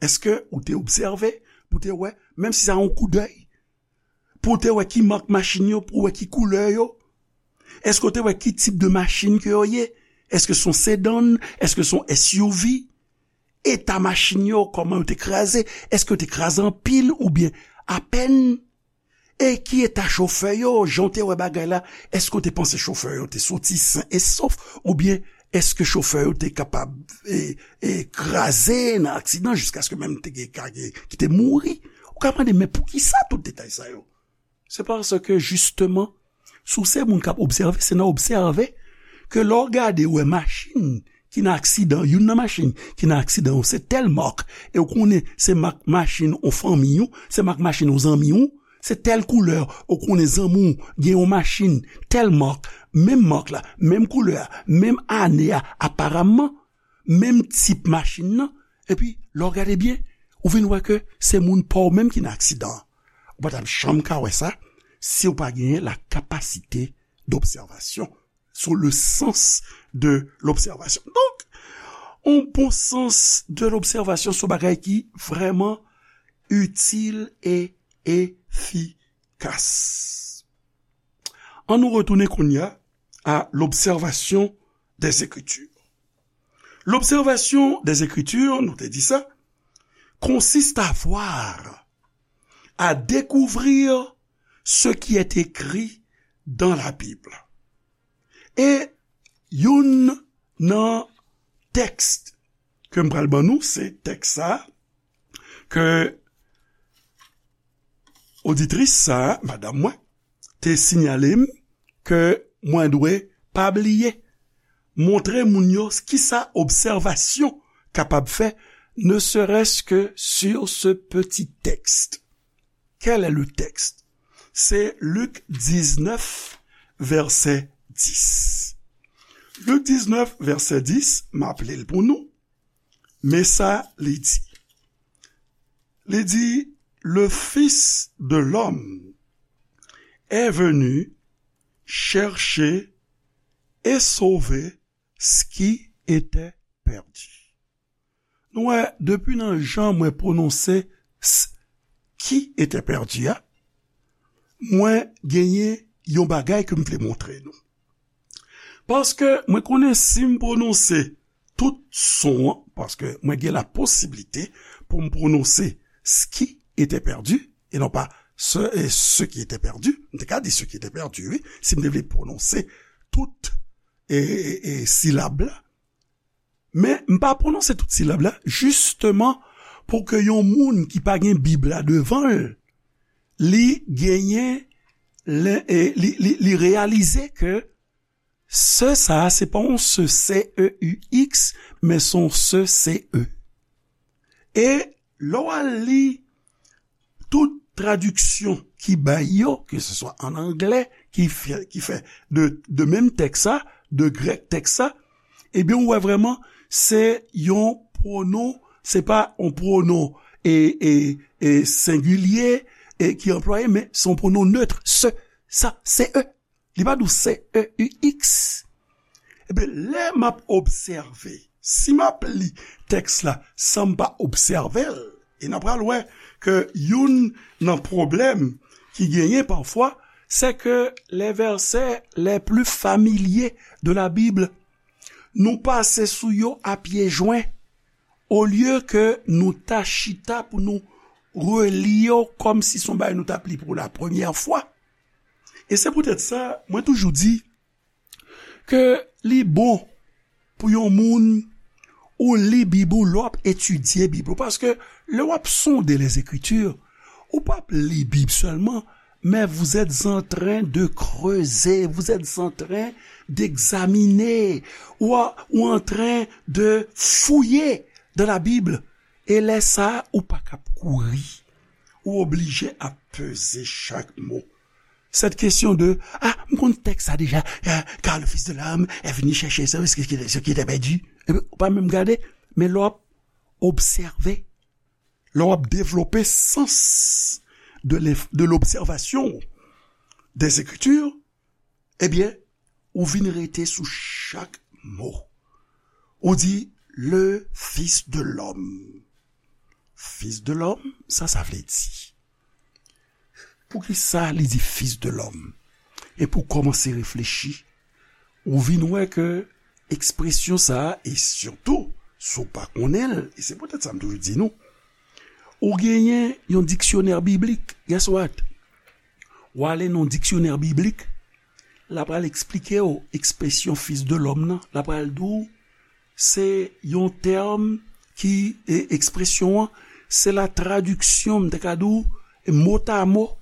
Èske ou te obsève pou te wè, menm si sa yon koudèy, pou te wè ki mak machin yo, pou wè ki koulè yo? Èske w te wè ki tip de machin ke yo ye? Èske se yon sedan? Èske se yon S U V? Eta machin yo, kòman yo te kraze? Èske yo te kraze anpil oubyen apèn? E ki eta chofè yo, jan w te wè bagay la? Èske w te panse chofè yo te soti sen e sof? Oubyen èske chofè yo te kapab, e, e, kraze nan aksidan jiskaske menm te gen ka gen ki te mouri? Ou ka mande, "Men poukisa tout detay sa yo?" Se paske, jisteman, si w se moun k ap obsève, se nan obsève ke lè w gade, w wè machin ki nan aksidan, youn nan machin ki nan aksidan yo, se tèl mak, e w konnen se mak machin yon fanmi w, se mak machin yon zanmi w, se tèl koulè, ou konnen zanmi w gen yon machin, tèl mak, menm mak la, menm koulè a, menm ane a, aparamman, menm tip machin nan, epi lè w gade byen, ou vin wè ke se moun pa w menm ki nan aksidan an. Ou pa t ap janm ka wè sa si w pa genyen la capacité d'observation, sur le sens de l'observation. Donk, yon bon sans de lobsèvasyon se yon bagay ki vrèman itil e efikas. Ann nou retounen kounye a à l'observation des Écritures. L'observation des Écritures, nou te di sa, consiste à voir, à découvrir ce qui est écrit dans la Bible. E youn nan tèks ke m pral ban nou, se tèks sa ke oditris sa, madanm mwen, te siyale m ke mwen dwe pa bliye montre moun yo kisa obsèvasyon kapab fè, ne serait-ce que sur ce petit texte. Quel est le texte? C'est Luc dix-neuf, verset dix. Luc dix-neuf, verset dix, m ap li l pou nou. Men sa li di. Li di, le Fils de l'homme est venu chercher et sauver ce qui était perdu. Nou wè, depi nan jan mwen pwononse s ki était perdu a, mwen genyen yon bagay ke m vle montre nou. Paske mwen konnen si m pwononse tout son an, paske mwen gen la posiblite pou m pwononse ce qui était perdu, e non pa ce, e ce qui était perdu. M te ka di ce qui était perdu, wi, si m te vle pwononse tout e, e, e silab la. Men m pa pwononse tout silab la, jisteman pou ke yon moun ki pa gen Bib la devan l, li genyen, li, li, li reyalize ke ce sa a, se pa yon ce, C E U X, men se yon ce, C E. E lè w al li tout tradiksyon ki bay yo, ke se swa an anglè, ki fè, ki fè de, de menm tèks sa, de grèk tèks sa, ebyen, ou wè vrèman, se yon pwonon, se pa yon pwonon e, e, e sengilye e ki anplwaye, men se yon pwonon neutre, ce. sa, C E. Li pa di w C E U X. Ebyen, lè m ap obsève, si m ap li tèks la san m pa obsève l, e n a pral wè ke youn nan pwoblèm ki genyen pafwa, c'est que les versets les plus familiers de la Bible, nou pase sou yo a pye jwen, olye ke nou ta chita pou nou reli yo kòmsi se yon bagay nou t ap li pou la premyè fwa. E se poutèt sa, mwen toujou di ke li bon pou yon moun ou li Bib ou lè w ap etidye Bib ou. Paske lè w ap sonde les Écritures, ou p ap li Bib sèlman, mais vous êtes en train de creuser, vous êtes en train d'examiner, ou, ou en train de fouiller dans la Bible. E lè sa a, ou pa kab kouri. Ou oblije ap peze chak mo. Cette question de, ah, m konn tèks sa deja, ah, car le Fils de l'homme est venu chercher ce, ce qui, ce qui était perdu. Epi, ou pa menm gade, men lè w ap obsève, lè w ap devlope sans de l'ef-, de l'observation des Écritures, ebyen, ou vin rete sou chak mo. Ou di, le Fils de l'homme. Fils de l'homme, sa sa vle di? Poukisa li di Fils de l'homme? E pou kòmanse reflechi, ou vin wè ke ekspresyon sa a, e sitou, si w pa konnen l, e se poutèt sa m toujou di nou, ou genyen yon diksyonè biblik, guess what? W ale nan diksyonè biblik, l ap al eksplike w ekspresyon Fils de l'homme nan, l ap al di w, se yon tèm ki, e, ekspresyon an, se la traduction, m te ka di w, mot à mot,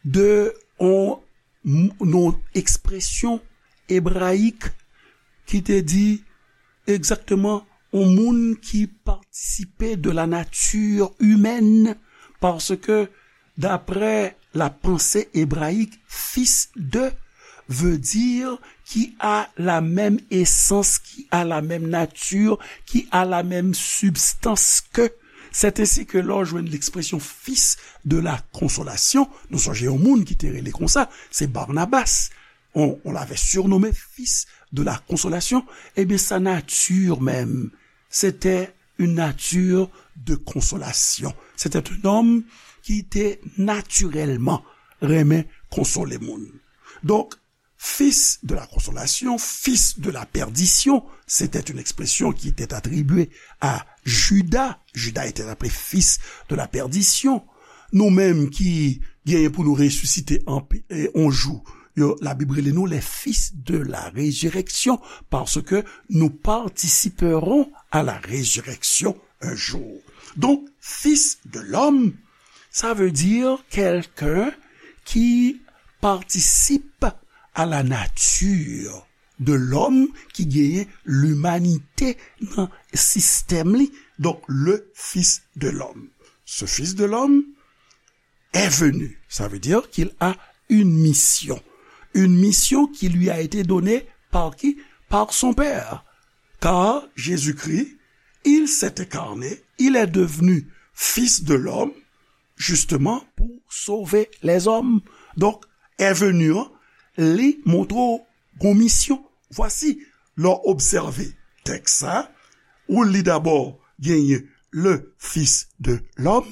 de yon, yon ekspresyon ebrayik ki te di egzakteman yon moun ki patisipe de la nature humaine, paske daprè la pensée hébraïque, fils de veut dire qui a la même essence, qui a la même nature, qui a la même substance que. C'est ainsi que lè w jwenn l'expression fils de la consolation, nou sonje yon moun ki te rele konsa, se Barnabas. On, on l'avait surnommé fils de la consolation. Ebyen, sa nati menm, c'était une nature de consolation. C'était un homme ki te natirèlman renmen konsole moun. Donk, fils de la consolation, fils de la perdition, c'était une expression qui était attribuée à Judas. Judas était appelé fils de la perdition. Nou menm ki genyen pou nou resisite an, e, on jou, yo, Labib rele nou les fils de la résurrection, parce que nous participerons à la résurrection un jour. Donc, fils de l'homme, ça veut dire quelqu'un qui participe à la nature de l'homme, ki genyen limanite nan sistèm li. Donk, le Fils de l'homme. Ce Fils de l'homme est venu. Ça veut dire qu'il a une mission. Une mission qui lui a été donnée par qui? Par son Père. Car Jésus-Christ, il s'est incarné, il est devenu Fils de l'homme, justement pour sauver les hommes. Donk, est venu an, li montre w gon misyon. Vwasi, lè w obsève tèks sa, ou li dabò genyen le Fils de l'homme,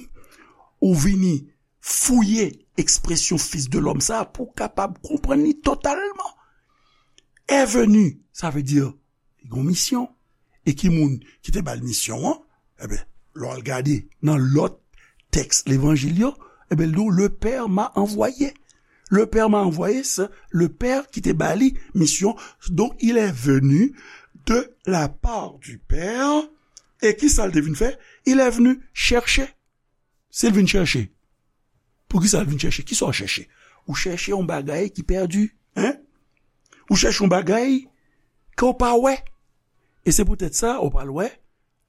ou vini fouye ekspresyon Fils de l'homme sa a pou w kapab konprann li totalman. Est venu, sa vle di, li gon misyon. E ki moun ki te ba l misyon an? Ebyen, lè w al gade nan lòt tèks levanjil yo, ebyen, l di w, le Père m'a envoyé. Le Père m'a envoyé, se le Père ki te ba li misyon. Donc, il est venu de la part du Père. E ki sa l te vin fè? Il est venu chercher. Si l vin chèche, poukisa l vin chèche? Kisa w chèche? Ou chèche yon bagay ki pèdi, en? Ou chèche yon bagay ke w pa wè. E se poutèt sa, ou pral wè,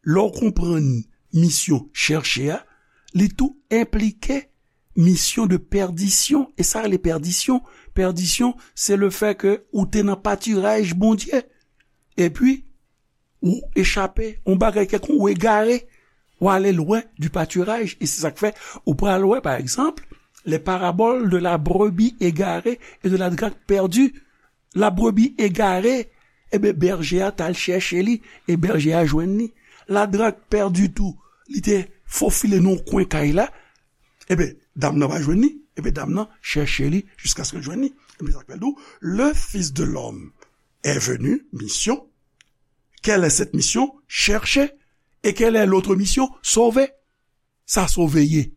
lè w konprann misyon chèche a, li tou enplike misyon de pèdisyon. E sa rele pèdisyon? Pèdisyon, se le fè ke ou te nan patiraj Bondye. Epi, ou echape, yon bagay kèlkonk, ou egare, ou ale lwen du patiraj. E se sa k fè, ou pral wè, pa egzanp, Les paraboles de la brebis égarée et de la drachme perdue. Labrebi egare, ebyen, bèje a t al chèche li, e bèje a jwenn li. Ladrak pèdi tou, li te fofile nan yon kwen kay la, ebyen, dam nan pa jwenn li, ebyen, dam nan chèche li jiskaske l jwenn li. Ebyen, sa k fè l di w, le Fils de l'homme est venu, mission. Quelle est cette mission? Chercher. Et quelle est l'autre mission? Sauver. Sa sove ye?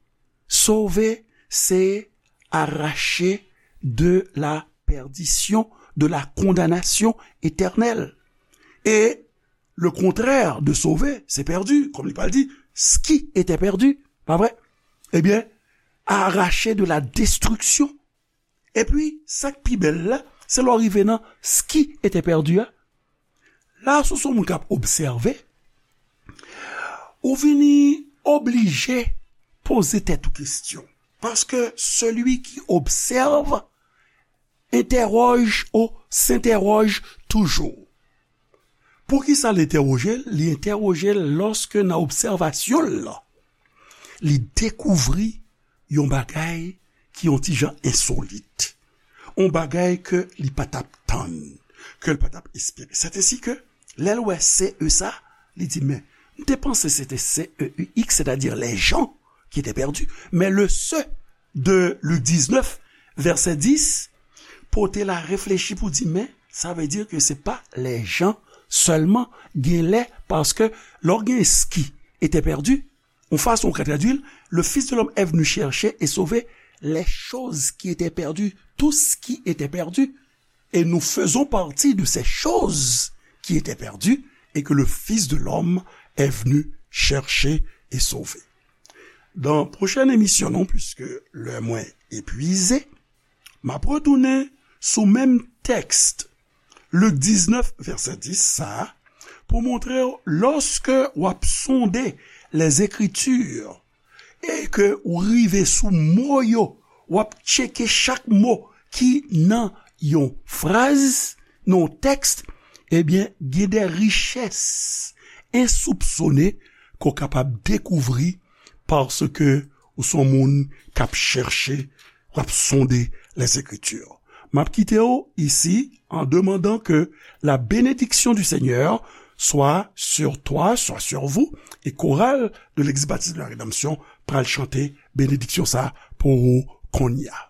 Sove, se arracher de la perdition, de la condamnation éternelle. Et le contraire de sauver, c'est perdu. Comme li pral di, ce qui était perdu, pa vre? Ebyen, arracher de la destruction. Epi, sa k pi bèl la, se lè w rive nan ce qui était perdu a. La, si w se yon moun k ap obsève, ou vini oblije poze tèt ou kesyon. Parce que celui qui observe interroge ou s'interroge toujours. Poukisa l entèwoje l? Li entèwoje l lòske nan obsèvasyon l lan, li dekouvri yon bagay ki yon ti jan ensolit, yon bagay ke li pa t ap tann, ke l pa t ap espere. Sètensi ke, lè l wè C E sa, li di, men, m te panse se te C E U X, c'est-à-dire les gens qui étaient perdus. Mais le ce de Lik diznèf, vèsè dis, pote l a reflechi pou di, men, sa vle di ke se pa les gens sèlman, gen lè, paske lè w gen ce qui était perdu, yon fason ou ka tradui l, le Fils de l'homme est venu chercher et sauver les choses qui étaient perdues, tout ce qui était perdu. Et nous faisons partie de ces choses qui étaient perdues et que le Fils de l'homme est venu chercher et sauver. Dans pwochèn emisyon nou, puisque lè mwen epwize, m ap retounen sou menm tèks, Lik diznèf, vèsè dis sa a, pou montre w, lòske w ap sonde les Écritures, e ke ou rive sou mo yo, w ap tcheke chak mo ki nan yon fraz, nan yon tèks, ebyen, gen de richès ensoupsone ke w kapab dekouvri paske ou se yon moun k ap chèche, w ap sonde les Écritures. M ap kite w isi en demandant que la bénédiction du Seigneur soit sur toi, soit sur vous, e koral de Legliz Batis de la Rédemption pral chante benediksyon sa pou ou kounye a.